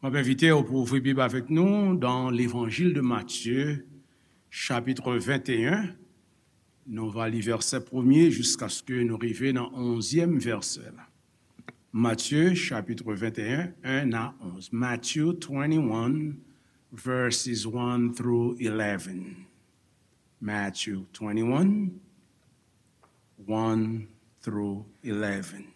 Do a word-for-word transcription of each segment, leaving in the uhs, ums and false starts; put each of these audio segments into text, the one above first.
Mwen ap envite w pou ouvri Bib avèk nou dans l'Évangile de Matthieu, chapitre vingt et un. Nou va li vèsè premye jiskaske nou rive nan onzyèm vèsè la. Matthieu, chapitre vingt et un, un à onze. Matthew twenty-one, verses one through eleven. Matthew twenty-one, one through eleven.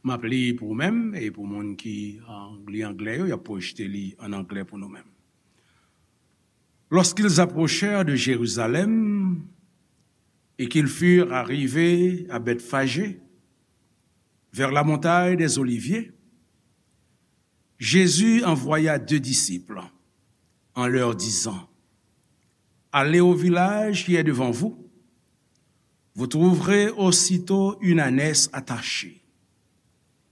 M ap li pou ou menm e pou moun ki, euh, li anglè yo, y ap pwojte li an anglè pou nou menm. Lorsqu'ils approchèrent de Jérusalem et qu'ils furent arrivés à Bethphagée, vers la montagne des Oliviers, Jésus envoya deux disciples en leur disant, allez au village qui est devant vous. Vous trouverez aussitôt une ânesse attachée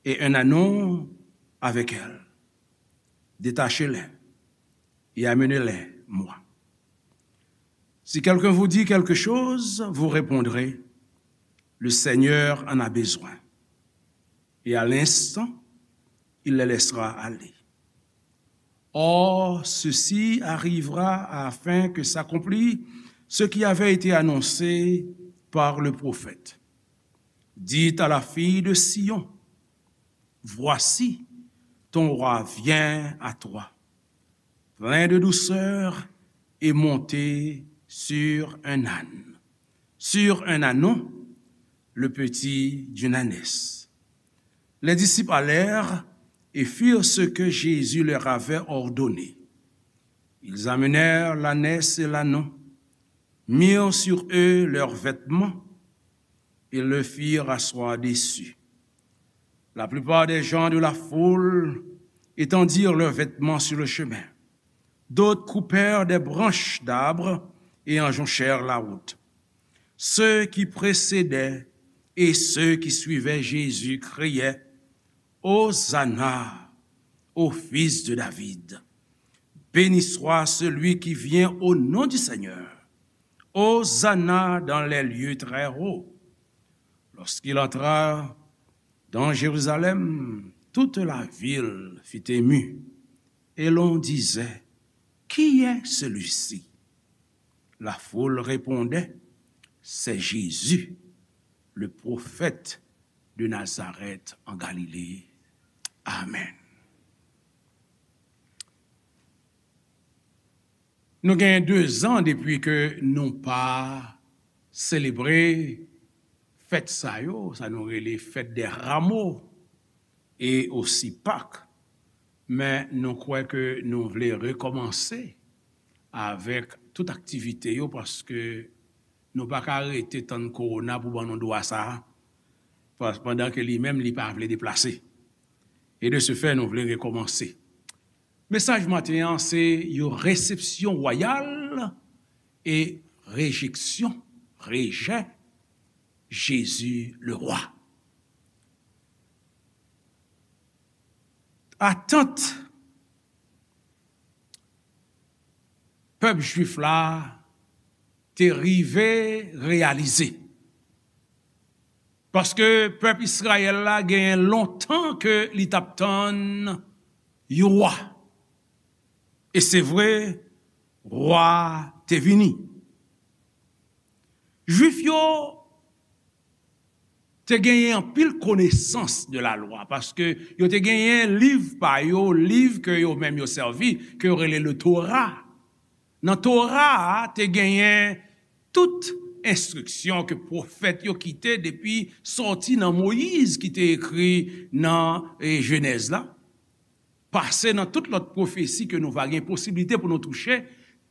et un ânon avec elle. Détachez-les et amenez-les moi. Si quelqu'un vous dit quelque chose, vous répondrez, le Seigneur en a besoin. Et à l'instant, il les laissera aller. Or, ceci arrivera afin que s'accomplisse ce qui avait été annoncé par le prophète. Dites à la fille de Sion, voici, ton roi vient à toi, plein de douceur et monté sur un âne, sur un ânon, le petit d'une ânesse. Les disciples allèrent et firent ce que Jésus leur avait ordonné. Ils amenèrent l'ânesse et l'ânon, mirent sur eux leurs vêtements et le firent asseoir dessus. La plupart des gens de la foule étendirent leurs vêtements sur le chemin. D'autres coupèrent des branches d'arbres et en jonchèrent la route. Ceux qui précédaient et ceux qui suivaient Jésus criaient, Hosanna au fils de David. Béni soit celui qui vient au nom du Seigneur. Hosanna dans les lieux très hauts. Lorsqu'il entra dans Jérusalem, toute la ville fut émue, et l'on disait, qui est celui-ci ? La foule répondait, c'est Jésus, le prophète de Nazareth en Galilée. Amen. Nou gen de zan depi ke nou pa selebre fèt sa yo, sa nou rele fèt dè ramo e osi Pak. Men nou kwè ke nou vle rekòmanse avèk tout aktivite yo, paske nou pa ka rete tann kowona pou ban nou dwa sa a, pas-, pandan ke li menm li pa vle deplase. E de se fè, nou vle rekòmanse. Mesaj maten an, se yon resepsyon wayal e rejeksyon, rejè Jezi le Rwa. Atant pèp jwif la te rive reyalize. Paske pèp Izrayèl la genyen lontan ke li t ap tann yon wa. E se vre, wa te vini. Jwif yo te genyen anpil konesans de lalwa, paske yo te genyen liv pa yo, liv ke yo menm yo sèvi, ke yo rele le Tora. Nan Tora a, te genyen tout enstriksyon ke pwofèt yo kite depi sòti nan Moyiz ki te ekri nan, e, Jenèz la, pase nan tout lòt pwofesi ke nou va gen posiblite pou nou touche,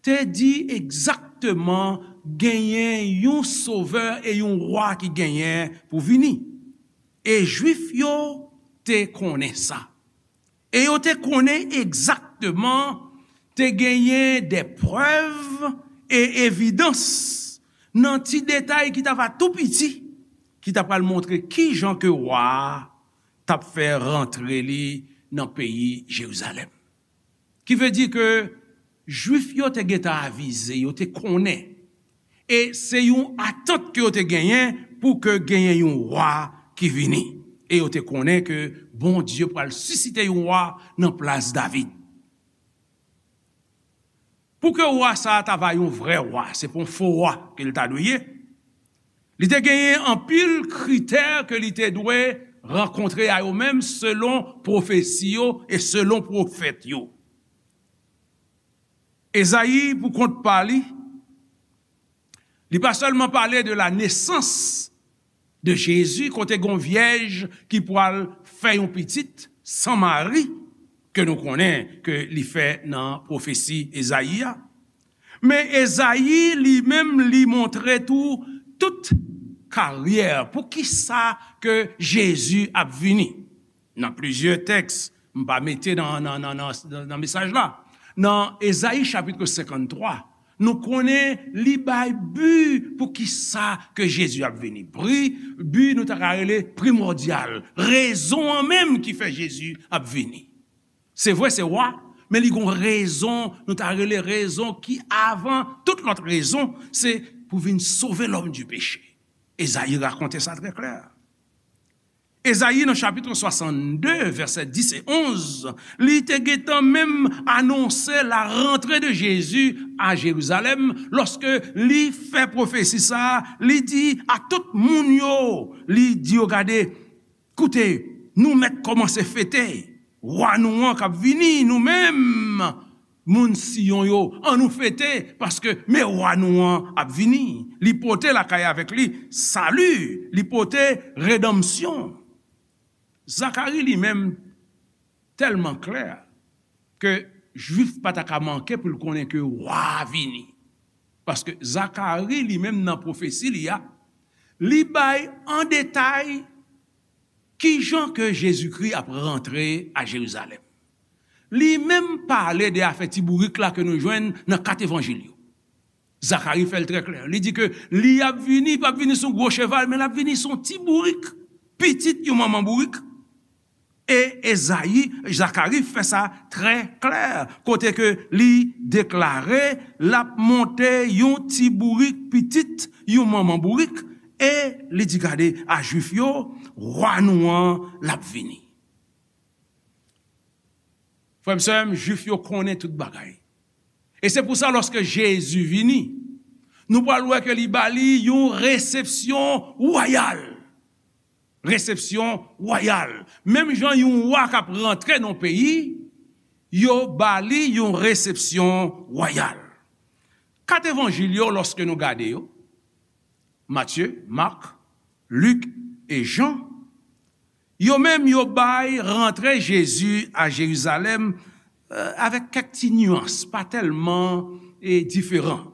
te di egzakteman genyen yon sovè e yon wa ki genyen pou vini. E Jwif yo te konnen sa. E yo te konnen egzakteman te genyen de prèv e evidans nan ti detay ki t ava tou piti, ki ta pral montre kijan ke wa a t ap fè rantre li nan peyi Jerizalèm. Ki vle di ke Jwif yo te gentan avize, yo te konnen. E se yon atant ke yo te genyen pou ke genyen yon wa ki vini. E yo te konnen ke Bondye pral sisite yon wa nan plas David. Pou ke wa sa a ta va yon vrè wa, se pa yon fo wa ke l ta dwe ye. Li te genyen anpil kritè ke li te dwe rankontre a yo menm selon pwofesi yo e selon pwofèt yo. Ezayi, pou kont pa li, li pa sèlman pale de la nesans de Jezi, kote gon vyèj ki pral fè yon pitit san mari, ke nou konnen ke li fè nan pwofesi Ezayi a. Men Ezayi li menm li montre tou tout karyè, pou ki sa ke Jezi ap vini. Nan plizyè tèks, m pa mete nan, nan, nan, nan, nan mesaj la. Nan Ezayi chapit senkanntwa, nou konnen li bay bi pou ki sa ke Jezi ap vini. Pri, bi nou ta ka rele primòdyal. Rezon an menm ki fè Jezi ap vini. Se vre, se wa, men li gon rezon, nou ta rele rezon ki avan tout lòt rezon, se pou vin sove lòm di peche. Ezayi rakonte sa trè klè. Ezayi nan chapit swasannde, vèsè dis e onz, li te gentan menm anonse la rantre de Jezi a Jerizalèm lòske li fè pwofesi sa a, li di a tout moun yo, li di yo, gade, koute, nou mèt kòmanse fete wa nou an k ap vini, nou menm, moun Siyon yo, ann nou fete, paske men wa nou an ap vini. Li pote lakay avèk li sali, li pote redanmsyon. Zakari li menm tèlman klè ke Jwif pa ta ka manke pou l konnen ke wa a vini. Paske Zakari li menm nan pwofesi li a, li bay an detay kijan ke Jezikri ap rantre a Jerizalèm. Li menm pale de afè ti bourik la ke nou jwenn nan kat Evanjil yo. Zakari fè l trè klè. Li di ke li ap vini, pa vini sou gwo cheval, men l ap vini sou ti bourik, pitit yon manman bourik. E Ezayi, Zakari fè sa trè klè, kote ke li deklare l ap monte yon ti bourik, pitit yon manman bourik, e li di, gade, a Jwif yo, wa nou an, l ap vini. Frè m, sè m, Jwif yo konnen tout bagay. E se pou sa, lòske Jezi vini, nou pral wè ke li ba li yon resepsyon wayal. Resepsyon wayal. Menm jan yon wa k ap rantre nan peyi, yo ba li yon resepsyon wayal. Kat Evanjil yo, lòske nou gade yo, Matye, Mak, Lik e Jan, yo menm yo bay rantre Jezi a Jerizalèm, eh, avèk kèk ti nyans, pa tèlman, eh, diferan.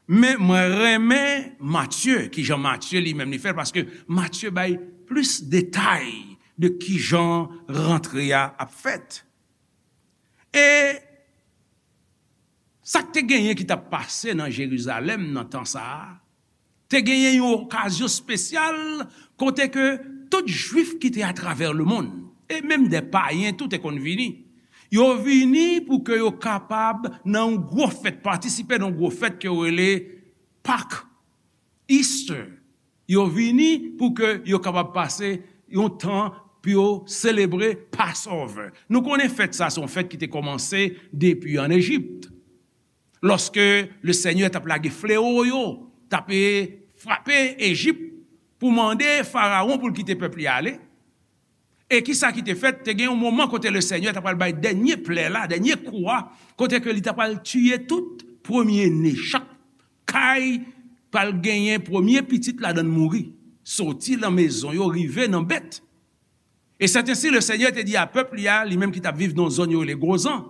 Men mwen renmen Matye, kijan Matye li menm li fè l, paske Matye bay plis detay de kijan rantre a ap fèt. E sa k te genyen ki t ap pase nan Jerizalèm nan tan sa a, te genyen yon okazyon espesyal kote ke tout Jwif ki te atravè lemonn, e menm de payen tou te konn vini. Yo vini pou ke yo kapab nan yon gwo fèt, patisipe nan yon gwo fèt ke yo rele Pak, Easter. Yo vini pou ke yo kapab pase yon tan pou yo selebre Passover. Nou konnen fèt sa, se yon fèt ki te kòmanse depi ann Ejip. Lòske Lesenyè t ap lage flewo yo, t ap, e, frape Ejip pou mande Farawon pou l kite pèp li ale. E kisa ki te fèt? Te gen yon moman kote Lesenyè t ap pral bay dènye plè la, dènye kou a, kote ke li t ap pral tiye tout premye ne. Chak kay pral genyen premye pitit ladan l mouri, soti nan mezon yo rive nan bèt. E sèt ensi, Lesenyè te di a pèp li a, li menm ki t ap viv nan zòn yo rele Gozan,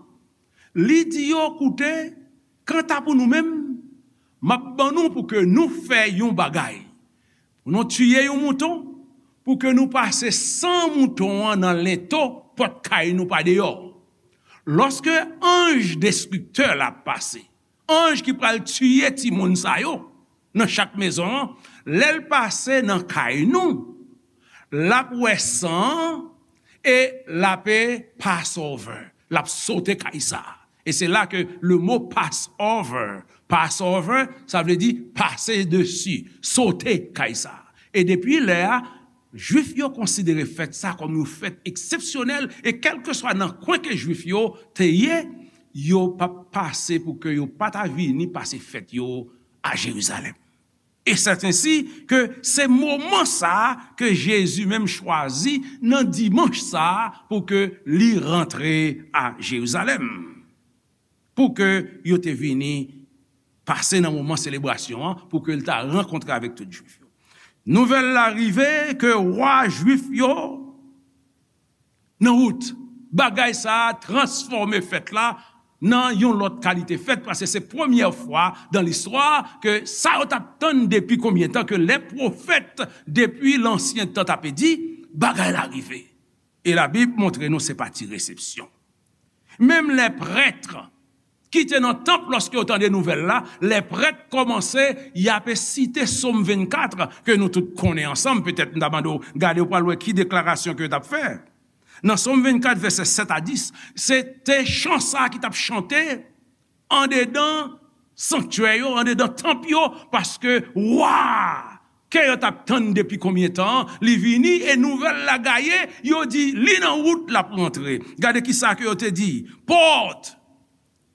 li di yo, koute, kanta pou nou menm, m ap ban nou pou ke nou fè yon bagay. Pou nou tiye yon mouton, pou ke nou pase san mouton an nan lento pòt kay nou pa deyò. Lòske anj destriktè la ap pase, anj ki pral tiye timoun sa yo nan chak mezon an, lè l pase nan kay nou, l ap wè san an e l ap, e, Passover. L ap sote kay sa a. E se la ke le mo Passover, Passover, sa vle di pase desi, sote kay sa a. E depi lè a, Jwif yo konsidere fèt sa kòm yon fèt eksepsyonèl, e kèlkeswa nan kwen ke Jwif yo te ye, yo p ap pase pou ke yo pa ta vini pase fèt yo a Jerizalèm. E sèt ensi ke se moman sa a ke Jezi menm chwazi nan dimanch sa a pou ke li rantre a Jerizalèm, pou ke yo te vini pase nan moman selebrasyon an, pou ke l ta rankontre avèk tout Jwif yo. Nouvèl la rive ke wa Jwif yo nan wout. Bagay sa a transfòme fèt la nan yon lòt kalite fèt, paske se premyè fwa dan listwa ke sa yo t ap tann depi konbyen tan, ke lè pwofèt depi lansyen tan t ape di, bagay la rive. E Labib montre nou se pa ti resepsyon. Menm lè prèt ki te nan tanp, lòske yo tande nouvèl la, lè prèt kòmanse, y ape site Sòm vennkat, ke nou tout konnen ansanm, petèt m ta mande w gade, w pral wè ki deklarasyon ke yo t ap fè. Nan Sòm vennkat, vèsè sèt a dis, se te chan sa a ki t ap chante andedan sanktyè yo, andedan tanp yo, paske wa ke yo t ap tann depi konbyen tan an, li vini, e nouvèl la gaye, yo di, li nan wout, l ap rantre. Gade ki sa ke yo te di, pòt,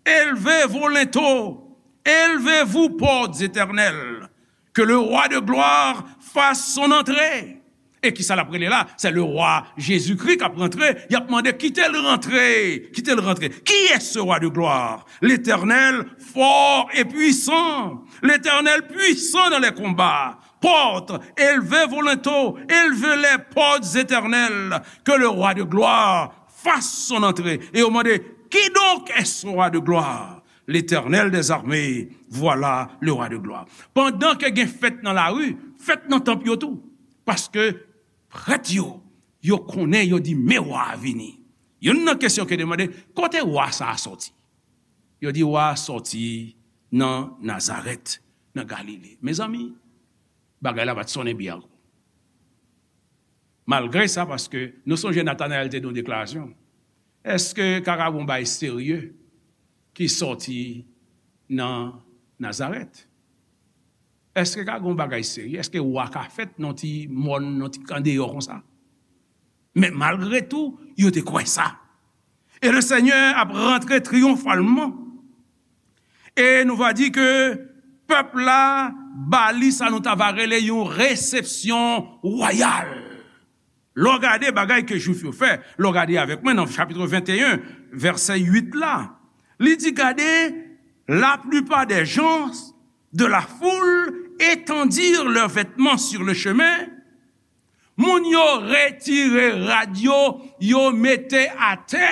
élevez vos linteaux, élevez-vous, portes éternelles, que le roi de gloire fasse son entrée. E ki sa l ap rele la? Se le rwa Jezikri k ap rantre. Y ap mande, kite l rantre, kite l rantre. Qui est ce roi de gloire? L'Éternel, fort et puissant. L'Éternel, puissant dans les combats. Portes, élevez vos linteaux, élevez les portes éternelles, que le roi de gloire fasse son entrée. E yo mande, qui donc est ce roi de gloire? L'Éternel des armées, voilà le roi de gloire. Pandan ke gen fèt nan lari, fèt nan tanp yo tou. Paske prèt yo, yo konnen, yo di, men wa a vini. Youn nan kesyon ke demande, kote wa sa a sòti? Yo di, wa a sòti nan Nazarèt, nan Galile. Mezanmi, bagay la pa t sonnen byen ankò. Malgre sa, paske nou sonje Natanayèl te di yon deklarasyon. Èske ka gen yon bagay serye ki sòti nan Nazarèt? Èske ka gen yon bagay serye? Èske wa ka fèt nan ti mòn, nan ti andeyò konsa? Men malgre tou, yo te kwè sa. E le Senyè ap rantre triyonfalman. E nou va di ke pèp la ba li sa nou ta va rele yon resepsyon wayal. Lè w gade bagay ke Jwif yo fè, lè w gade avèk mwen nan chapit venteyen, vèsè uit la, li di, gade, la plupart des gens de la foule étendirent leurs vêtements sur le chemin. Moun yo retire rad yo, yo mete atè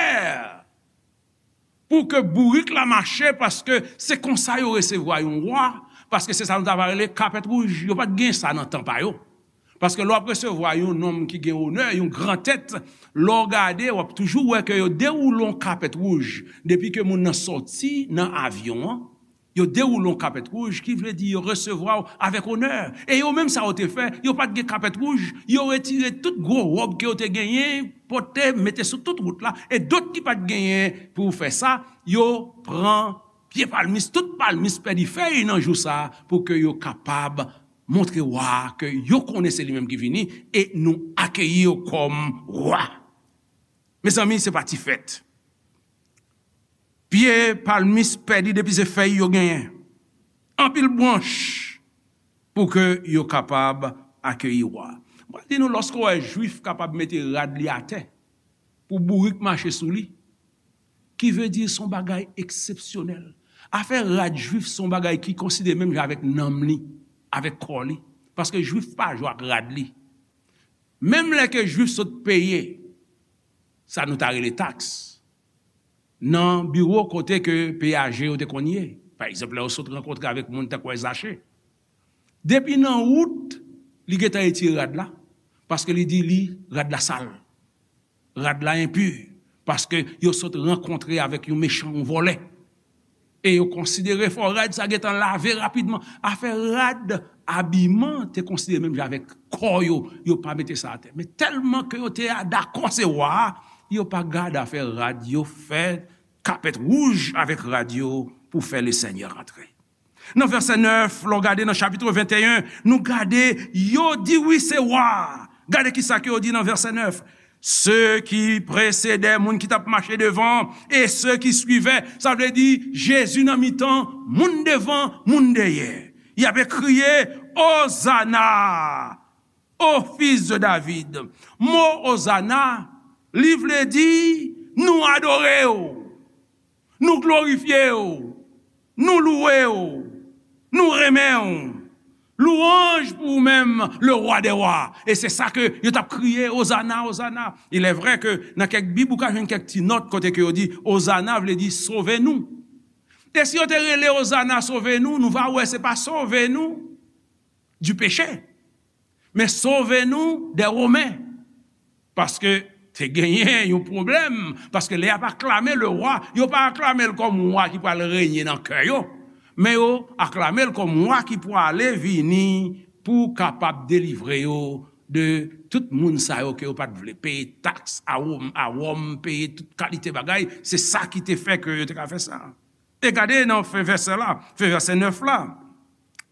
pou ke bourik la mache, paske se konsa yo resevwa yon wa, paske se sa nou ta va rele kapèt wouj. Yo pa t gen sa nan tan pa yo. Paske lè w ap resevwa yon nonm ki gen onè, yon gran tèt, lè w gade, w ap toujou wè ke yo dewoule yon kapèt wouj. Depi ke moun nan sòti nan avyon an, yo dewoule yon kapèt wouj, ki vle di yo resevwa w avèk onè. E yo menm sa yo te fè, yo pa t gen kapèt wouj, yo retire tout gwo wòb ke yo te genyen, pote, mete sou tout wout la, e dòt ki pa t genyen pou fè sa, yo pran pye palmis, tout palmis pèdi fèy nan jou sa a, pou ke yo kapab montre wa a ke yo konnen se li menm ki vini, e nou akeyi yo kòm wa. Mezanmi, se pa ti fèt. Pye palmis pèdi depi se fèy yo genyen. Anpil branch pou ke yo kapab akeyi wa. Mwen di nou, lòske w wè Jwif kapab mete rad li atè pou bourik mache sou li, ki vle di se yon bagay eksepsyonèl. Afè rad Jwif se yon bagay ki konsidere menm jan avèk nanm li, avèk kò li. Paske Jwif pa jwe ak rad li. Menm lè ke Jwif sot peye sa nou ta rele taks nan biwo kote ke peyaje yo te konn ye. Pa egzanp, lè yo sot rankontre avèk moun tankou Zache. Depi nan wout, li gentan retire rad la, paske li di li, rad la sal. Rad la enpi, paske yo sot rankontre avèk yon mechan, yon vòlè. E yo konsidere fò rad sa gentan lave rapidman. Afè rad, abiman te konsidere menm jan avèk kò yo, yo pa mete sa atè. Men tèlman ke yo te dakò se wa a, yo pa gade afè rad, yo fè kapèt wouj avèk rad yo pou fè Lesenyè rantre. Nan vèsè nèf, lè w gade nan chapit venteyen, nou gade, yo di wi, se wa. Gade ki sa ke yo di nan vèsè nèf. Ceux qui précédaient, moun ki t ap mache devan, et ceux qui suivaient, sa vle di Jezi nan mitan, moun devan, moun dèyè. Y ap kriye, Ozana, au fils de David. Mo Ozana, li vle di, nou adore w. Nou glorifye w, nou louwe w, nou renmen w. Lwanj pou ou menm, le roi des rois. E se sa ke yo t ap kriye, Ozana, Ozana. Il est vrai ke nan kèk bib, ou ka jwenn kèk ti nòt kote ke yo di, Ozana vle di sove nou. E si yo te rele Ozana sove nou, nou va wè se pa sove nou du péché, men sove nou des Romains. Paske te genyen yon pwoblèm, paske lè y ap aklame le roi, yo pa aklame l kòm wa ki pral renye nan kè yo, men yo aklame l kòm wa ki prale vini pou kapab delivre yo de tout moun sa yo ke yo pa t vle peye taks a Wòm, a Wòm, peye tout kalite bagay. Se sa ki te fè ke yo te ka fè sa. E gade nan fen vèsè la, fen vèsè nèf la,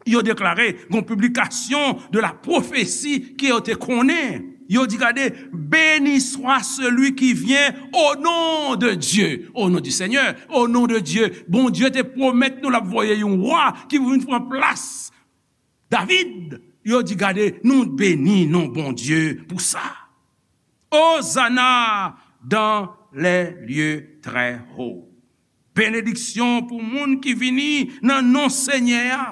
yo deklare gon piblikasyon de la pwofesi ke yo te konnen. Yo di, gade, béni soit celui qui vient au nom de Dieu, au nom du Seigneur, au nom de Dieu. Bondye te pwomèt nou l ap voye yon wa ki pou vin pran plas David. Yo di, gade, nou beni non Bondye pou sa. Ozana dans les lieux très hauts. Benediksyon pou moun ki vini nan non Senyè a.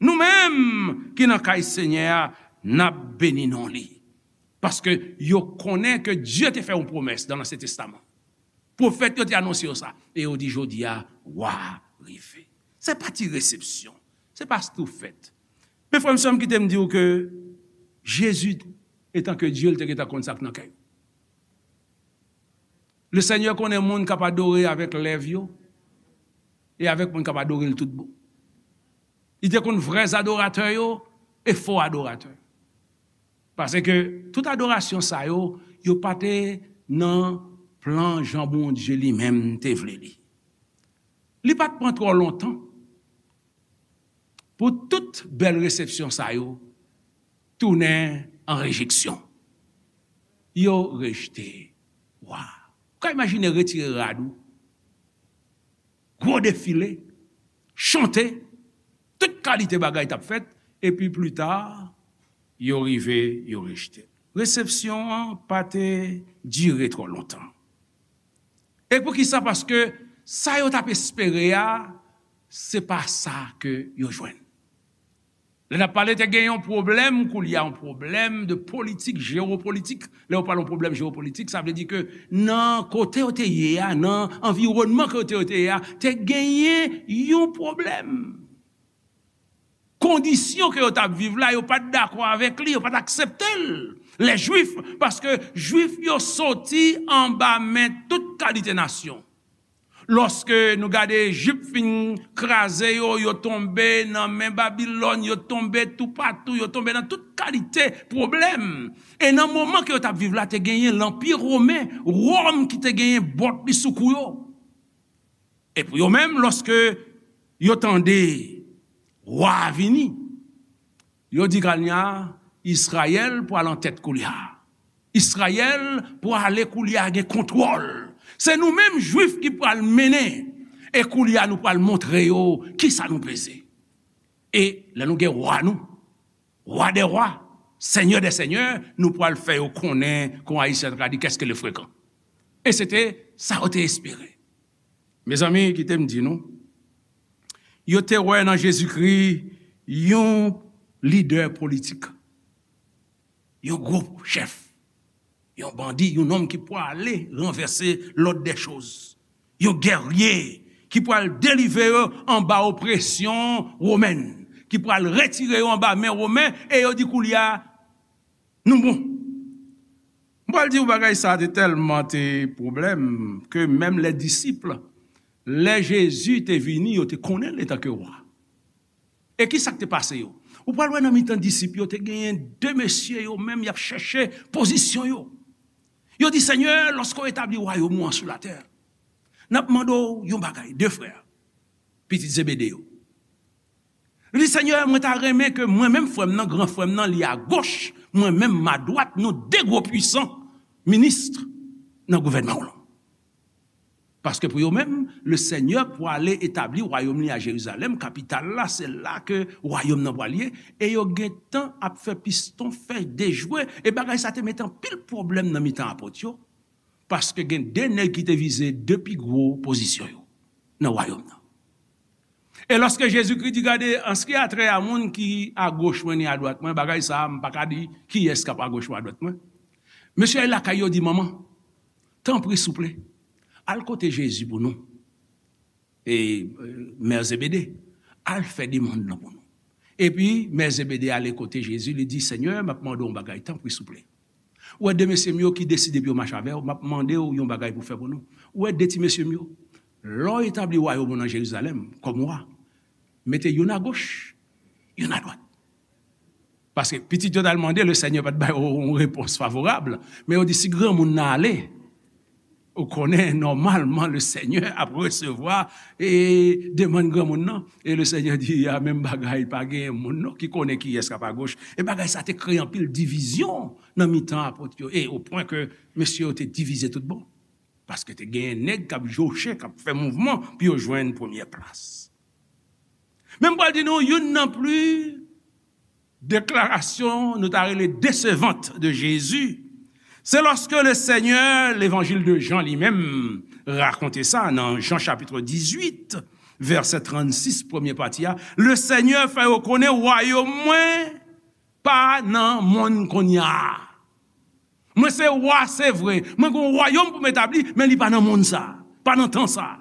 Nou menm ki nan kay Senyè a, n ap beni non li. Paske yo konnen ke Dye te fè yon pwomès nan Ansyen Testaman. Pwofèt yo te anonse yo sa. E yo di, jodi a, wa a rive. Se pa ti resepsyon. Se pa stoufèt. Men frè m, sè m, kite m di w ke Jezi, etan ke Dye, l te gentan konn sa k nan kè yo. Le Senyè konnen moun k ap adore avèk lèv yo e avèk moun k ap adore l tout bon. Li te konn vrè adoratè yo e fo adoratè. Paske tout adorasyon sa yo, yo pa te nan plan jan Bondye li menm te vle li. Li pa t pran twò lontan pou tout bèl resepsyon sa yo tounen an rejeksyon. Yo rejte wa. Ou ka imajine retire rad ou, gwo defile, chante, tout kalite bagay t ap fèt, epi plita, yo rive, yo rejte. Resepsyon an pa te dire twò lontan. E poukisa? Paske sa yo t ap espere a, se pa sa ke yo jwenn. Lè n ap pale, te gen yon pwoblèm, koulye a yon pwoblèm de politik, jewopolitik. Lè yo pale yon pwoblèm jewopolitik, sa vle di ke nan kote yo te ye a, nan anviwònman ke yo te, yo te ye a, te genyen yon pwoblèm. Kondisyon ke yo t ap viv la, yo pa t dakò avèk li, yo pa t aksepte l, lè Jwif, paske Jwif yo soti anba men tout kalite nasyon. Lòske nou gade Ejip fin kraze yo, yo tonbe nan men Babilòn, yo tonbe toupatou, yo tonbe nan tout kalite pwoblèm. E nan moman ke yo t ap viv la, te genyen Lanpi Women, Wòm ki te genyen bòt li sou kou yo. E pou yo menm, lòske yo tande wa a vini, yo di, kounye a, Izrayèl pral an tèt koulye a. Izrayèl pral koulye a gen kontwòl. Se nou menm Jwif ki pral mennen. E koulye a nou pral montre yo kisa nou peze. E lè nou gen wa nou, Roi des rois, Seigneur des seigneurs, nou pral fè yo konnen, kon Ayisyen ta ka di, qu'est-ce que le frekan. E se te sa yo te espere. Mezanmi, kite m di nou, yo te wè nan Jezikri yon lidè politik, yon gwo chèf, yon bandi, yon nonm ki pwale ranvèse lòd dè choz, yon gèrye ki pwal delivre yo anba opresyon womèn, ki pwal retire yo anba men Women, e yo di koulye a, nou bon. M pral di w bagay sa te tèlman te pwoblèm ke menm lè disip, lè Jezi te vini, yo te konnen l etanke wa. E ki sa k te pase yo? Ou pral wè nan mitan disip yo, te genyen de mesye yo menm y ap chèche pozisyon yo. Yo di, Senyè, lòske w etabli wayòm ou an sou latè, n ap mande w yon bagay, de frè, pitit Zebede yo. Li di, Senyè, mwen ta renmen ke mwen menm, frè m nan, gran frè m nan, li agoch, mwen menm, m adwat, nou de gwo pwisan minis nan gouvènman w lan. Paske pou yo menm, le Senyè pwale etabli wayòm li a Jerizalèm, kapital la, se la ke wayòm nan pral ye, e yo gentan ap fè piston fè dejwe, e bagay sa te mete anpil pwoblèm nan mitan apot yo, paske gen de nèg ki te vize de pi gwo pozisyon yo nan wayòm nan. E lòske Jezikri di, gade, an se ki a trè a moun ki agoch mwen ni adwat mwen, bagay sa a, m pa ka di kiyès k ap agoch mwen, adwat mwen. Mesye lakay yo di, manman, tanpri, souple, al kote Jezi pou nou. E, e, mè Zebede, al fè demann nan pou nou. Epi, mè Zebede ale kote Jezi, li di, Senyè, m ap mande w yon bagay, tanpri, souple. Ou wè de mesye m yo ki deside pou yo mache avè w, m ap mande w yon bagay pou fè pou nou. Ou wè de ti mesye m yo, lè w etabli wayòm ou nan Jerizalèm, kòm wa, mete youn agoch, youn adwat. Paske pitit yo t al mande, le Senyè pa t ba yo yon repons favorab. Men yo di, si granmoun nan ale, ou konnen, nòmalman, le Senyè ap resevwa e demann granmoun nan. E le Senyè di, a, menm bagay, pa gen moun non ki konnen kiyès k ap agoch. E bagay sa te kreye anpil divizyon nan mitan apot yo. E o pwen ke mesye yo te divize tout bon. Paske te gen nèg k ap joche, k ap fè mouvman pou yo jwenn premyè plas. Men m pral di nou, youn nan pli deklarasyon nou ta rele desevant de Jezi, se lòske le Senyè, levanjil de Jan li menm rakonte sa nan Jan chapit dizuit, vèsè trannsis, premye pati a, le Senyè fè yo konnen wayòm mwen pa nan monn kounye a. Mwen se wa, se vre. Mwen gen yon wayòm pou m etabli, men li pa nan monn sa, pa nan tan sa.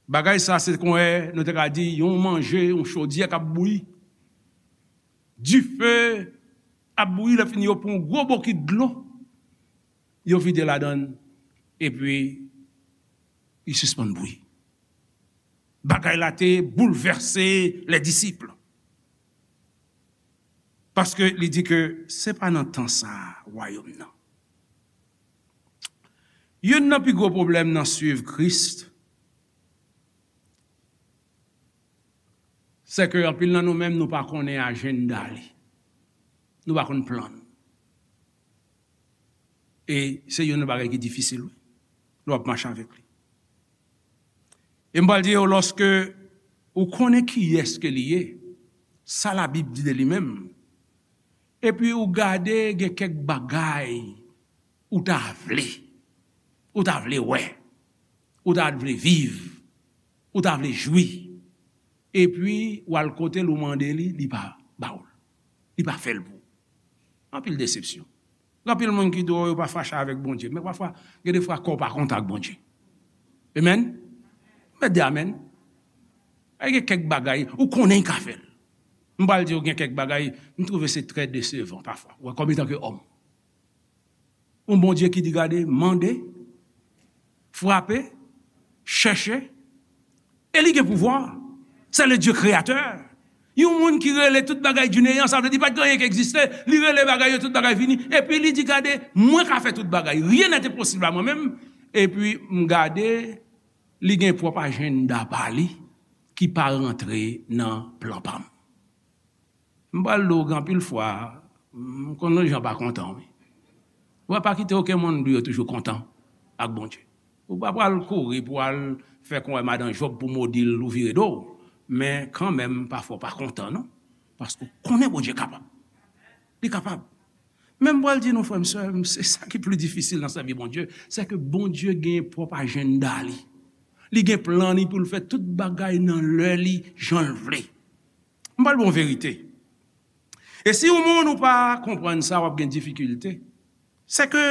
Bagay sa, se konwè, nou te ka di, yon manje, yon chodyè k ap bouyi. Dife ap bouyi, lè fini, yo pran yon gwo bokit dlo, yo vide ladan l, epi li sispann bouyi. Bagay la te boulvèse lè disip. Paske li di ke se pa nan tan sa a, wayòm nan. Youn nan pi gwo pwoblèm nan suiv Kris, se ke anpil nan nou menm, nou pa konnen ajanda li. Nou pa konn plan l. E se youn nan bagay ki difisil, wi. Lè w ap mache avèk li. E m pral di yo, lòske ou konnen kiyès ke li ye, sa Labib di de li menm, epi ou gade gen kèk bagay ou ta vle, ou ta vle wè, ou ta vle viv, ou ta vle jwi, epi w al kote l, ou mande li, li pa ba w l, li pa fè l pou ou. Anpil desepsyon. Gen anpil moun ki di w yo pa fache avèk Bondye, men pafwa, gen de fwa kè w pa kontan ak Bondye. Amen? Mèt di amen. Ay, gen kèk bagay, ou konnen l ka fè l. M pral di w, gen kèk bagay, m twouve se trè desevan pafwa. Ou wè, kòm etan ke òm. Yon Bondye ki di, gade, mande, frape, chèche, e li gen pouvwa. Se le Dye kreyatè. Yon moun ki rele tout bagay du néant, sa vle di pa t gen anyen ki egziste, li rele bagay yo, tout bagay vini, epi li di, gade, mwen ka fè tout bagay. Rien n'est impossible à moi-même. Epi m gade, li gen pwòp ajanda pa li ki pa rantre nan plan pa m. M pral di w, gen anpil fwa, m konn yon jan pa kontan, wi. Ou pa kite okenn moun di yo toujou kontan ak Bondye. Ou pa pral kouri pou al fè konwè madan Jòb pou modi l ou vire do w. Men kanmenm, pafwa w pa kontan, non. Paske w konnen Bondye kapab. Li kapab. Men m pral di nou, frè m, sè m, se sa ki pli difisil nan sèvi Bondye, se ke Bondye gen pwòp ajanda li. Li gen plan li pou l fè tout bagay nan lè li, jan l vle. M pral ba w verite. E si yon moun ou pa konprann sa, w ap gen difikilte. Se ke,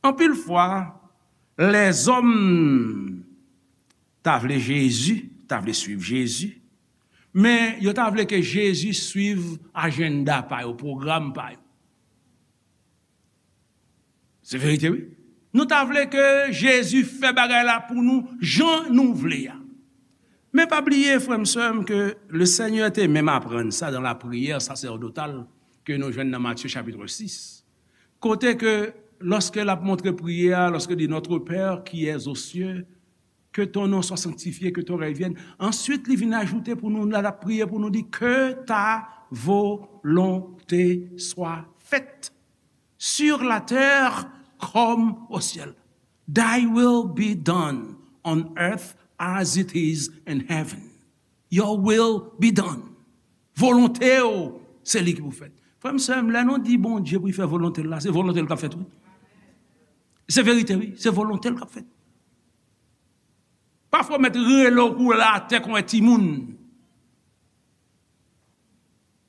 anpil fwa, lèzòm ta vle Jezi, ta vle suiv Jezi, men yo ta vle ke Jezi suiv ajanda pa yo, pwogram pa yo. Se verite, wi. Nou ta vle ke Jezi fè bagay la pou nou jan nou vle a. Men pa bliye, frè m, sè m, ke le Senyè te menm aprann sa dans la prière sacerdotale ke nou jwenn nan Matye chapit sis. Kote ke, lòske l ap montre priyè a, lòske li di, Notre Père qui es aux cieux, Que ton nom soit sanctifié, que ton règne vienne. Answit, li vin ajoute pou nou, la, l ap priye pou nou, di, Que ta volonté soit faite sur la terre comme au ciel. Thy will be done on earth as it is in heaven. Your will be done. Volonte w, se li ki pou fèt. Frè m, sè m, lè nou di Bondye pou l fè volonte l la, se volonte l k ap fèt, wi. Se verite, wi. Se volonte l k ap fèt. Pafwa, w mèt rele w koule atè kon yon timoun.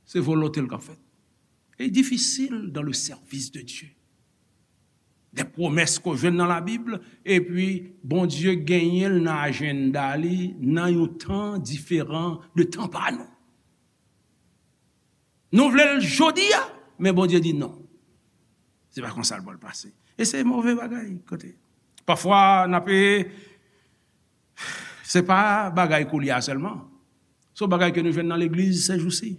Se volonte l k ap fèt. E difisil dans le service de Dieu. De pwomès ke w jwenn nan Labib, epi Bondye genyen l nan ajanda li, nan yon tan diferan de tan pa nou. Nou vle l jodi a, men Bondye di non. Se pa konsa l pral pase. E se move bagay, kote. Pafwa, n ap, se pa bagay koulye a sèlman. Se yon bagay ke nou jwenn nan legliz sèjousi.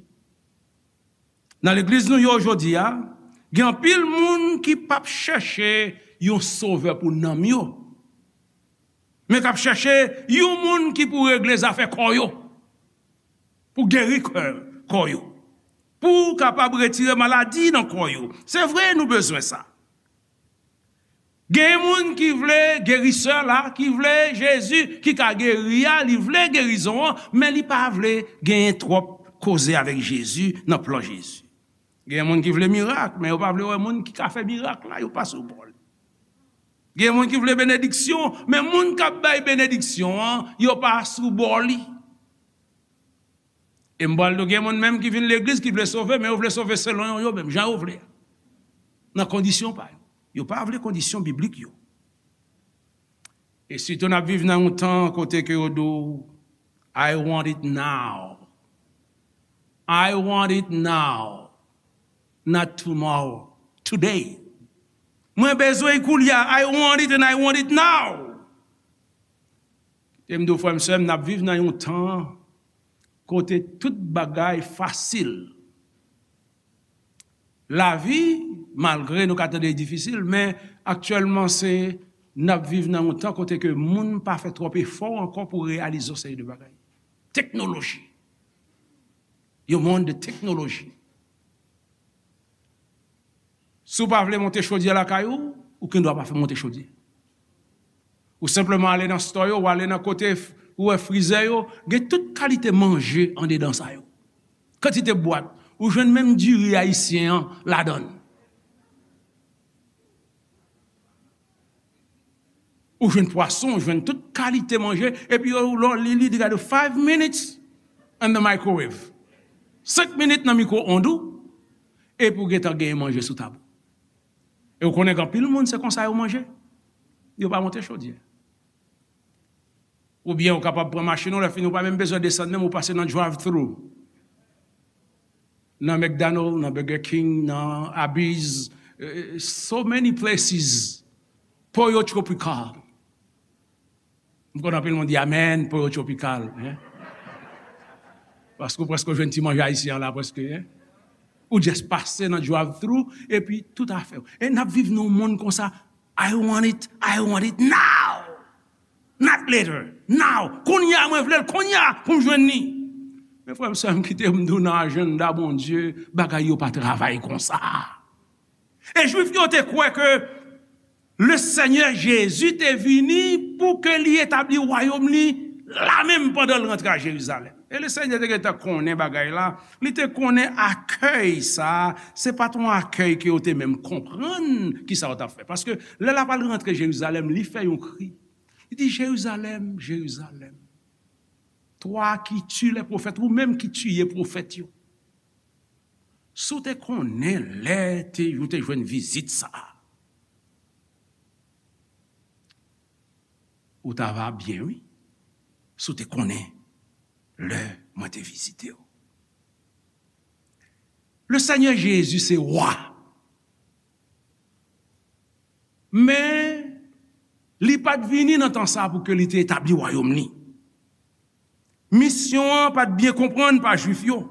Nan legliz nou yo jodi a, gen anpil moun ki p ap chèche yon sovè pou nanm yo, men k ap chèche yon moun ki pou regle zafè kò yo, pou geri kò, kò yo, pou kapab retire maladi nan kò yo. Se vre, nou bezwen sa. Gen moun ki vle gerisè la, ki vle Jezi ki ka geri a, li vle gerizon an, men li pa vle genyen twòp koze avèk Jezi nan plan Jezi. Gen moun ki vle mirak, men yo pa vle wè moun ki ka fè mirak la, yo pa sou bò li. Gen moun ki vle benediksyon, men moun k ap bay benediksyon an, yo pa sou bò li. E m pral di w, gen moun menm ki vin legliz, ki vle sove, men yo vle sove selon yo, yo menm, jan yo vle a. Nan kondisyon pa yo. Yo pa vle kondisyon biblik yo. E sitou n ap viv nan yon tan kote ke yo di w, "I want it now. I want it now. Not tomorrow. Today." Mwen bezwen l koulye a. I want it and I want it now. E m di w, frè m, sè m, n ap viv nan yon tan kote tout bagay fasil. Lavi, malgre nou ka tande li difisil, men aktyèlman se, n ap viv nan yon tan kote ke moun pa fè twòp efò ankò pou reyalize yon seri de bagay. Teknoloji. Yon mond de teknoloji. Si w pa vle monte chodyè lakay ou, ou gen dwa pa fè monte chodyè. Ou senpleman ale nan store yo, ou ale nan kote f-, ou wè frizè yo, gen tout kalite manje andedan sa yo. Kantite bwat, ou jwenn menm diri ayisyen an ladan l. Ou jwenn pwason, ou jwenn tout kalite manje, epi yo, lè w li, li di gade five minutes in the microwave. Senk minit nan mikwo ond ou, epi w gentan genyen manje sou tab ou. E w konnen gen anpil moun, se konsa yo manje. Yo pa monte chodyè. Oubyen ou kapab pran machin ou, lè fini ou pa menm bezwen desann menm, ou pase nan drive-thru. Nan McDonald, nan Burger King, nan Arby's, eh, so many places. Pollo Tropical. M konn anpil moun di amen, Pollo Tropical, hein? Paske ou prèske jwenn ti manje ayisyen an la, prèske, hein? Ou just pase nan drive-thru, epi tout afè w. E n ap viv nan yon mond konsa, "I want it, I want it now. Not later, now. Kounye a, mwen vle l, kounye a, pou m jwenn li." Men frè m, sè m, kite m di w, nan ajanda Bondye, bagay yo pa travay konsa. E Jwif yo te kwè ke le Senyè Jezi te vini pou ke li etabli wayòm li la menm pandan l rantre a Jerizalèm. E le Senyè te gentan konnen bagay la, li te konnen akèy sa, se pa t yon akèy ke yo te menm konprann kisa yo t ap fè. Paske lè l ap al rantre Jerizalèm, li fè yon kri. Li di, "Jérusalem, Jérusalem, toi qui tues les prophètes, ou menm ki tiye pwofèt yo." Si w te konnen lè te, ou te jwenn vizit sa a, ou ta va byen, wi. Si w te konnen lè mwen te vizite w. Le Senyè Jezi se wa. Men, li pa t vini nan tan sa a pou ke li te etabli wayòm li. Misyon an pa t byen konprann pa Jwif yo.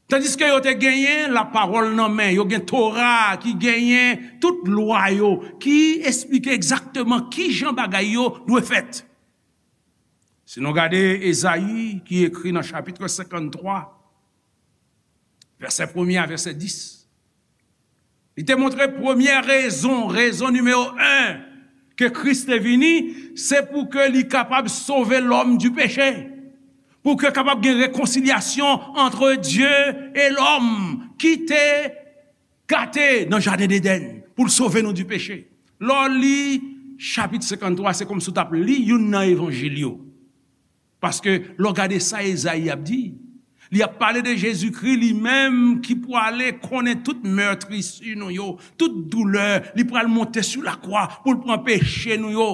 Tandiske yo te genyen lapawòl nan men, yo gen Tora ki genyen tout lwa yo, ki esplike egzakteman ki jan bagay yo dwe fèt. Si nou gade Ezayi ki ekri nan chapit senkanntwa, vèsè premye a vèsè dis, li te montre premyè rezon, rezon nimewo en ke Kris te vini, se pou ke li kapab sove lòm di peche, pou ke kapab gen rekonsilyasyon antre Dye e lòm ki te gate nan jaden Edenn, pou l sove nou di peche. Lè w li chapit senkanntwa, se kòmsi w t ap li youn nan evanjil yo. Paske lè w gade sa Ezayi ap di, li ap pale de Jezikri li menm ki pwale konnen tout meurtrissures nou yo, tout doulè, li pral monte sou lakwa pou l pran peche nou yo.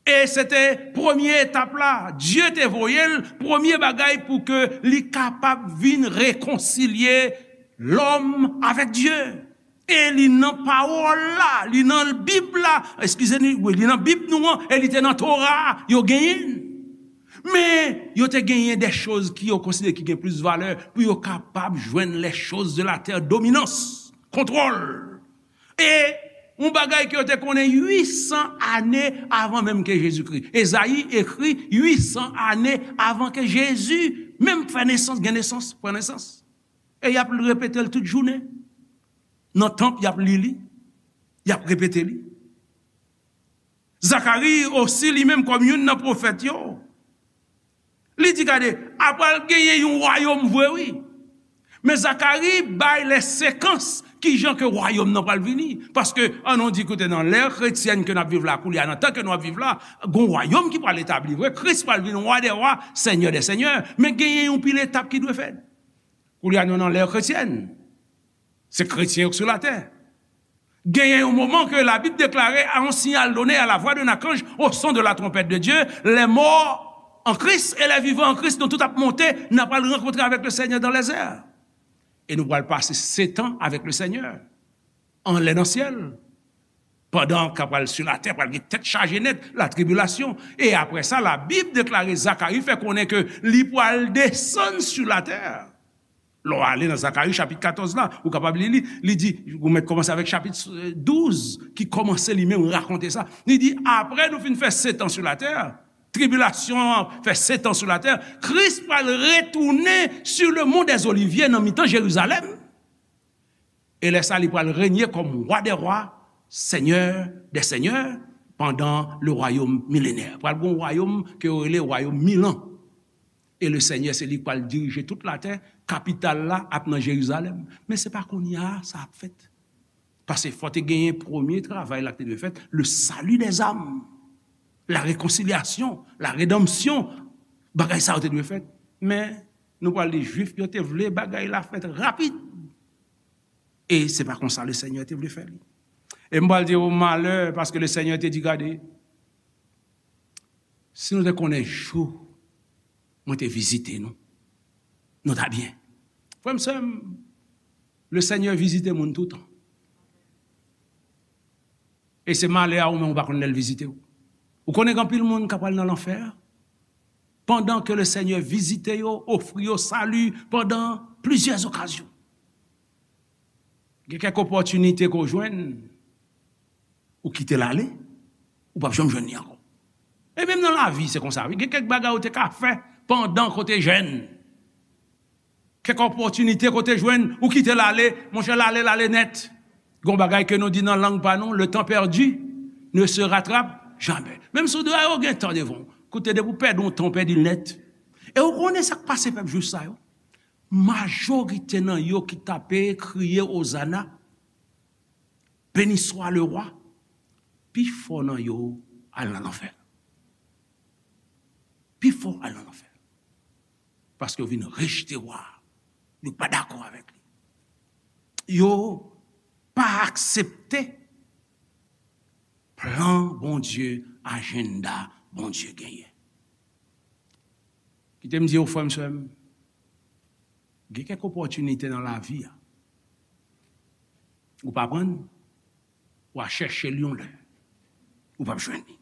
E se te premye etap la. Dye te voye l, premye bagay pou ke li kapab vin rekonsilye lòm avèk Dye. E li nan pawòl la, li nan Bib la, eskize m, wi, li nan Bib nou an, e li te nan Tora a, yo genyen l. Men, yo te genyen de choz ki yo konsidere ki gen plis valè pou yo kapab jwenn les choses de la terre, dominans, kontwòl. E yon bagay ke yo te konnen uit san ane avan menm ke Jezikri. Ezayi ekri uit san ane avan ke Jezi menm fè nesans, gen nesans, pran nesans. E y ap repete l tout jounen. Nan tanp, y ap li li. Y ap repete li. Zakari osi, li menm kòm youn nan pwofèt yo, li di, gade, apral genyen yon wayòm vre, wi. Men Zakari bay lè sekans ki jan ke wayòm nan pral vini. Paske, an nou di, koute, nan lè kretyèn ke n ap viv la, koulye a, nan tan ke nou ap viv la, gon wayòm ki pral etabli vre. Kris pral vin wa dè wa, Senyè dè senyè. Men genyen yon pil etap ki dwe fèt. Koulye a, nou nan lè kretyèn. Se kretyen yo k sou latè. Genyen yon moman ke Labib deklare, à un signal donné, à la voix d'un archange, au son de la trompette de Dieu, les morts en Christ et les vivants en Christ, nou tout ap monte, n ap al rankontre avèk le Seigneur dans les airs. E nou pral pase sèt an avèk le Seigneur, anlè nan syèl. Pandan k ap pral sou latè, pral gen tèt chaje nèt, latribilasyon. E apre sa, Labib deklare, Zakari fè konnen ke li pral desann sou latè. Lè w ale nan Zakari chapit katòz la, ou kapab li li, li di, ou mèt kòmanse avèk chapit, eh, douz, ki kòmanse li menm rakonte sa. Li di, apre nou fin fè sèt an sou latè, tribilasyon an fè sèt an sou latè, Kris pral retounen sur le mont des Oliviers nan mitan Jerizalèm. E lè sa, li pral renye kòm wa dè wa, Senyè dè senyè, pandan le wayòm milenè. Pral gen yon wayòm ke yo rele wayòm mil an. E le Senyè, se li k pral dirije tout latè, kapital la ap nan Jerizalèm. Men se pa kounye a sa ap fèt. Paske fò te genyen premye travay la ki te dwe fèt, le salut des âmes, la réconciliation, la rédemption, bagay sa yo te dwe fèt. Men, nou pral li Jwif yo te vle bagay la fèt rapid. E se pa konsa le Senyè te vle fè li. E m pral di w malè, paske le Senyè te di, gade, si nou te konnen jou mwen te vizite nou, nou ta byen. Frè m, sè m, le Senyè vizite moun toutan. E se malè a ou menm ou pa konn lè l vizite w. Ou konnen gen anpil moun k ap al nan lanfè, pandan ke le Senyè vizite yo, ofri yo sali pandan plizyè okazyon. Gen kèk opòtinite ke w jwenn, ou kite l ale, ou p ap janm jwenn li ankò. E menm nan lavi, se konsa, wi. Gen kèk bagay ou te ka fè pandan ke w te jèn. Kèk opòtinite ke w te jwenn, ou kite l ale, monchè, l ale, l ale nèt. Gen yon bagay ke nou di nan lang pa nou, le temps perdu ne se rattrape jamais. Menm si w di, a, ou gen tan devan w. Koute, depi w pèdi yon tan, w pèdi l nèt. E ou konnen sa k pase pèp Jwif sa yo? Majorite nan yo ki t ape kriye Ozana, Béni soit le roi, pifò nan yo al nan lanfè. Pifò al nan lanfè. Paske yo vin rejte wa a. Yo pa dakò avèk li. Yo pa aksepte plan Bondye, ajanda Bondye genyen. Kite m di w, frè m, sè m, gen kèk opòtinite nan lavi a. Ou pa pran l, w a chèche l yon lè. Ou p ap jwenn li.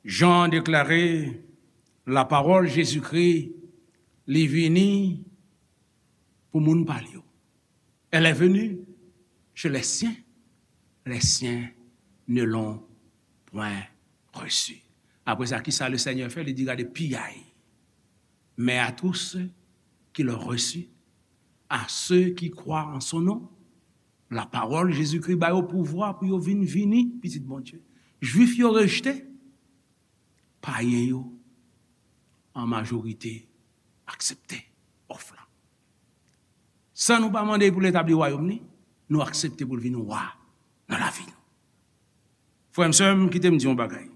Jan deklare, lapawòl Jezikri Li vini pou moun pa l yo. Elle est venue chez les siens, les siens ne l'ont point reçue. Apre sa, ki sa le Seigneur fè? Li di, gade, piyay. Mais à tous ceux qui l'ont reçu, à ceux qui croient en son nom, la parole, Jezikri ba yo pouvwa pou yo vin vini pitit Bondye. Jwif yo rejte, payen yo, an majorite, aksepte òf la. San nou pa mande pou l etabli wayòm li, nou aksepte pou l vin wa nan lavi nou. Frè m, sè m, kite m di yon bagay.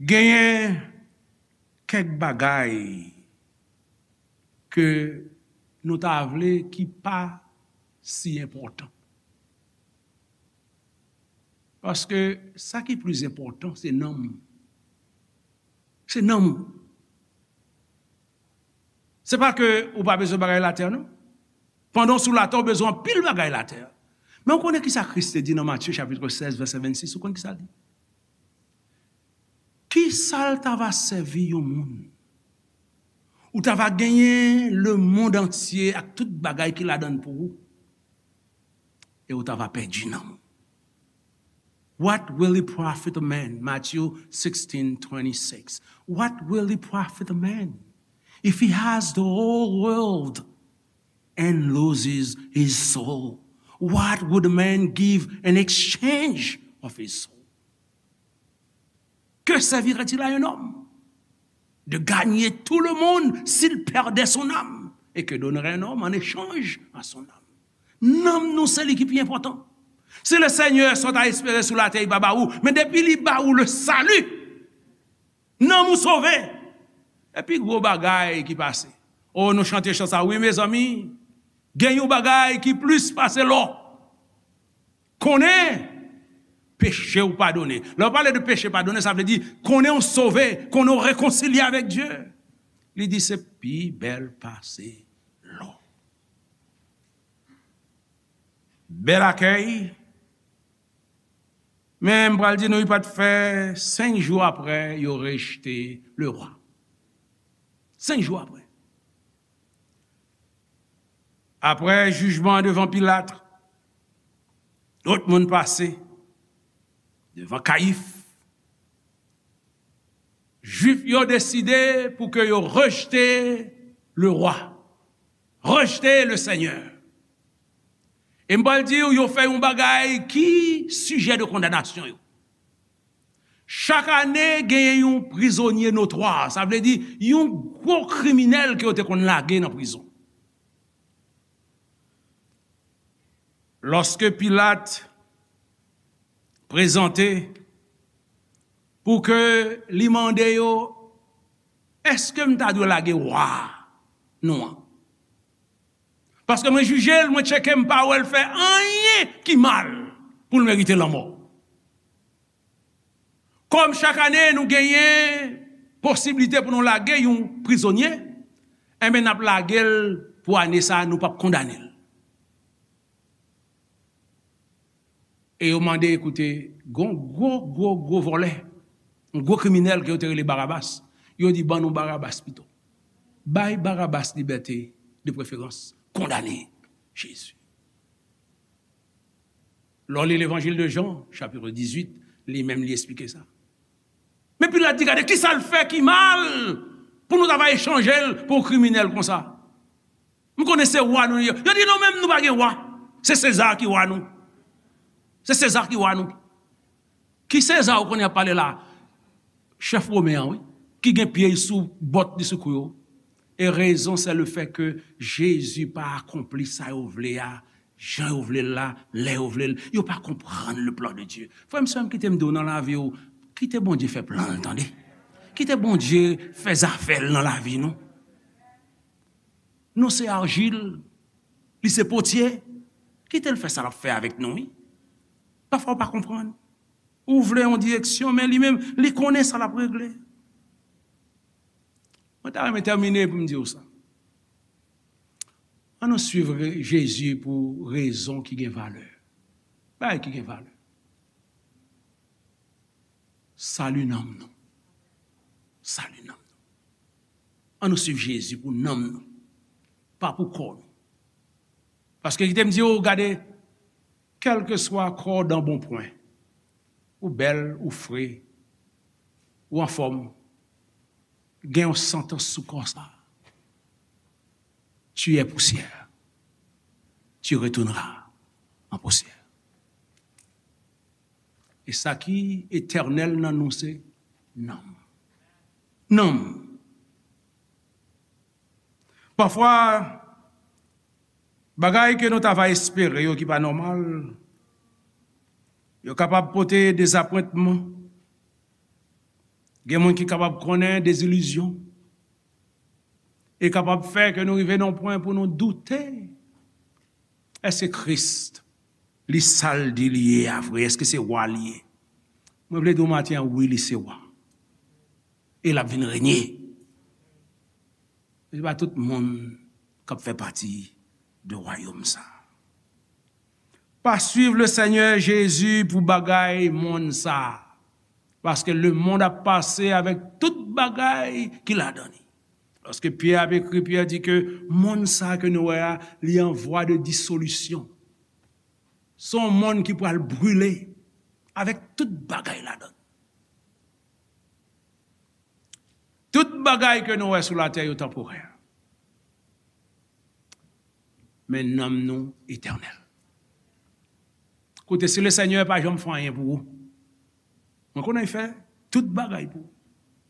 Genyen kèk bagay ke nou ta vle ki pa si enpòtan. Paske sa ki plis enpòtan, se nanm ou. Se nanm ou. Se pa ke ou pa bezwen bagay latè, non. Pandan w sou latè, w bezwen anpil bagay latè. Men w konnen ki sa Kris te di nan Matye chapit sèz, vèsè vennsis, ou konn ki sa l di? Ki sa l ta va sèvi yon moun? Ou ta va genyen lemonn antye ak tout bagay ki ladan l pou ou, e ou ta va pèdi nanm ou. What will it profit a man? Matthew sixteen twenty-six. What will it profit a man if he has the whole world and loses his soul? What would a man give in exchange of his soul? Que servirait-il à un homme de gagner tout le monde s'il perdait son âme? Et que donnerait un homme en échange à son âme? Nanm nou, se li ki pi enpòtan. Si le Seigneur sa w ta espere sou latè, li pa ba ou, men depi li ba ou le salut, nanm ou sove. E pi gwo bagay ki pase. O, nou chante chan sa, wi, mezanmi. Gen yon bagay ki plis pase lò. Konnen peche w padone. Lè w pale de peche padone, sa vle di konnen w sove, konnen w rekonsilye avèk Dye. Li di se pi bèl pase lò. Bèl akèy. Men m pral di nou, li pa t fè senk jou apre, yo rejte le wa. Senk jou apre. Apre jijman devan Pilat, lòt moun pase devan Kayif. Jwif yo deside pou ke yo rejte le wa, rejte le Senyè. E m pral di w, yo fè yon bagay ki sijè de kondanasyon yo. Chak ane, genyen yon prizonye notwa, sa vle di yon gwo kriminèl ke yo te konn lage nan prizon. Lòske Pilat prezante pou ke li mande yo, èske m ta dwe lage wa nou an? Paske mwen jije l, mwen tcheke, m pa wè l fè anyen ki mal pou l merite lanmò. Kòm chak ane nou genyen posiblite pou nou lage yon prizonye, enben n ap lage l pou ane sa a, nou p ap kondane l. E yo mande, koute, gon gwo, gwo, gwo vòlè, yon gwo kriminèl ke yo te rele Barabas. Yo di, ban nou Barabas pito. Bay Barabas libète de preferans, kondane Jezi. Lè w li Levanjil de Jan, chapit dizuit, li menm li esplike sa. Men Pilat di, gade, ki sa l fè ki mal pou nou ta va echanje l pou yon kriminèl konsa? M konnen se wa nou ye. Yo di, non, menm nou pa gen wa. Se Seza ki wa nou. Se Seza ki wa nou. Ki Seza ou konnen y ap pale la? Chèf women an, wi. Ki gen pye l sou bòt li sou kou yo. E rezon, se le fè ke Jezi pa akonpli sa yo vle a, jan yo vle l la, lè yo vle l. Yo pa konprann le plan de Dieu. Frè m, sè m, kite m di w nan lavi w, kite Bondye fè plan l, tande. Kite Bondye fè zafè l nan lavi nou. Nou se arjil, li se potye. Kite l fè sa l ap fè avèk nou, wi. Pafwa w pa konprann. Ou vle yon direksyon, men li menm, li konnen sa l ap regle. Mwen ta renmen tèmine pou m di w sa. Ann nou swiv re-, Jezi pou rezon ki gen valè. Bagay ki gen valè. Sali nanm nou. Sali nanm nou. Ann nou swiv Jezi pou nanm nou, pa pou kò nou. Paske kite m di w, gade, kèlkeswa kò w dan bon pwen, ou bèl, ou fre, ou anfòm, gen yon santans sou kò sa. Tu es poussière. Tu retourneras en poussière. E sa ki etènèl nan nou se nanm. Nanm. Pafwa, bagay ke nou ta va espere yo ki pa nòmal, yo kapab pote dezapwentman. Gen moun ki kapab konnen dezilizyon. E kapab fè ke nou rive nan pwen pou nou doute. Èske Kris, li sa l di li ye a vre? Èske se wa li ye? Mwen vle di w maten an, wi, li se wa. E l ap vin renye. Se pa tout moun k ap fè pati de wayòm sa. Pa swiv le Senyè Jezi pou bagay monn sa. Paske lemonn ap pase avèk tout bagay ki ladan li. Lòske Pyè ap ekri, Pyè di ke monn sa ke nou wè a, li an vwa de disolisyon. Se yon monn ki pral brile avèk tout bagay ladan. Tout bagay ke nou wè sou latè yo tanporè. Men nanm nou etènèl. Koute, si le Senyè pa janm fè anyen pou ou, mwen konnen l fè tout bagay pou ou.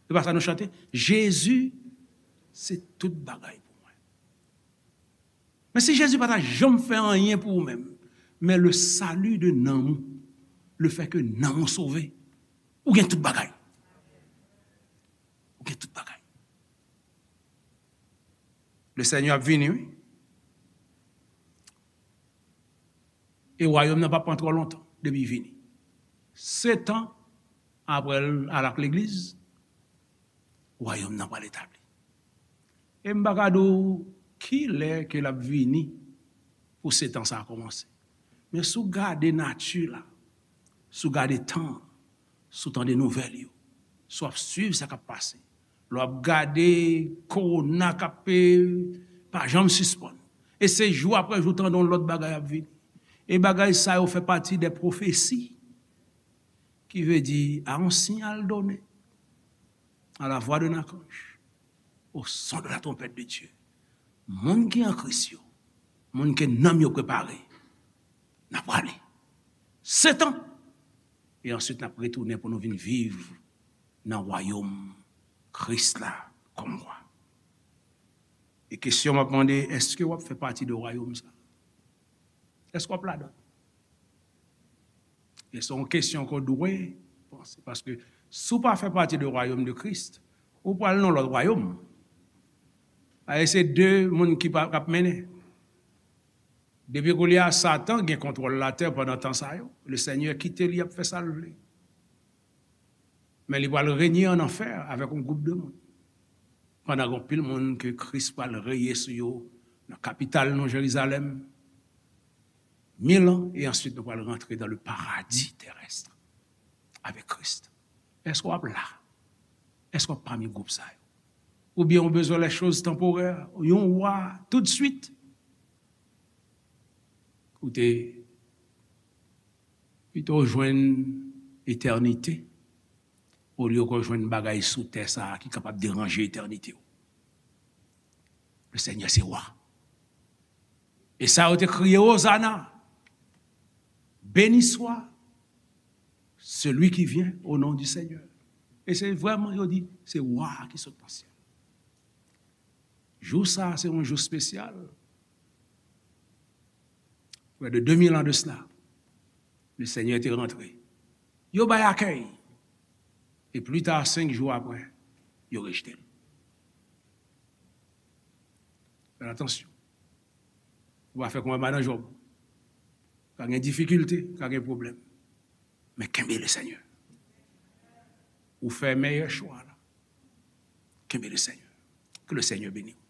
Se pa sa nou chante? Jezi, se tout bagay pou mwen. Men si Jezi pa ta janm fè anyen pou ou menm, men le salut de nanm ou, le fait que nanm ou sove, ou gen tout bagay. Ou gen tout bagay. Le Senyè ap vini, wi. E wayòm nan p ap pran twò lontan depi l vini. Sèt an apre l al ak legliz, wayòm nan pral etabli. E m pa ka di w kilè ke l ap vini pou sèt an sa a kòmanse. Men si w gade nati la, si w gade tan an, si w tande nouvèl yo, si w ap swiv sa k ap pase, lè w ap gade kowona k ap, eh, pa janm sispann. E se jou apre jou w tande yon lòt bagay ap vini. E bagay sa yo fè pati de pwofesi ki vle di, à un signal donné, à la voix d'un archange, au son de la trompette de Dieu. Moun ki an Kris yo, moun ke nanm yo prepare, n ap prale. Sèt an. E answit, n ap retounen pou nou vin viv nan wayòm Kris la kòm wa. E kesyon m ap mande, èske w ap fè pati de wayòm sa? Èske w ap ladan? E se yon kesyon ke w dwe panse. Paske si w pa fè pati de wayòm de Kris, ou pral nan lòt wayòm. Paske se de moun ki pa, k ap mennen. Depi kounye a, Satan gen kontwòl latè pandan tan sa yo. Le Senyè kite li ap fè sa l vle. Men li pral renye an anfè avèk yon gwoup de moun. Pandan gen anpil moun ke Kris pral reye sou yo nan kapital nou, Jerizalèm, mil an, e answit nou pral rantre dans le paradis terrestre avec Christ. Èske w ap la? Èske w ap pami gwoup sa yo? Oubyen w bezwen les choses temporaires, yon wa toutswit? Koute, pito w jwenn etènite, olye ke w jwenn bagay sou tè sa a ki kapab deranje etènite w. Le Senyè se wa. E sa yo te kriye, Ozana, béni soit celui qui vient au nom du Seigneur. E se vrèman, yo di, se wa a ki sot nan syèl. Jou sa a, se yon jou espesyal. Près de deux mille ans de cela, le Senyè te rantre. Yo bay akèy. E pli ta, senk jou apre, yo rejte l. Fè atansyon. Ou pa fè kòm madan Jòb. Ka gen difikilte, ka gen pwoblèm. Men kenbe le Senyè. Ou fè meyè chwa la. Kenbe le Senyè. Ke le Senyè beni w.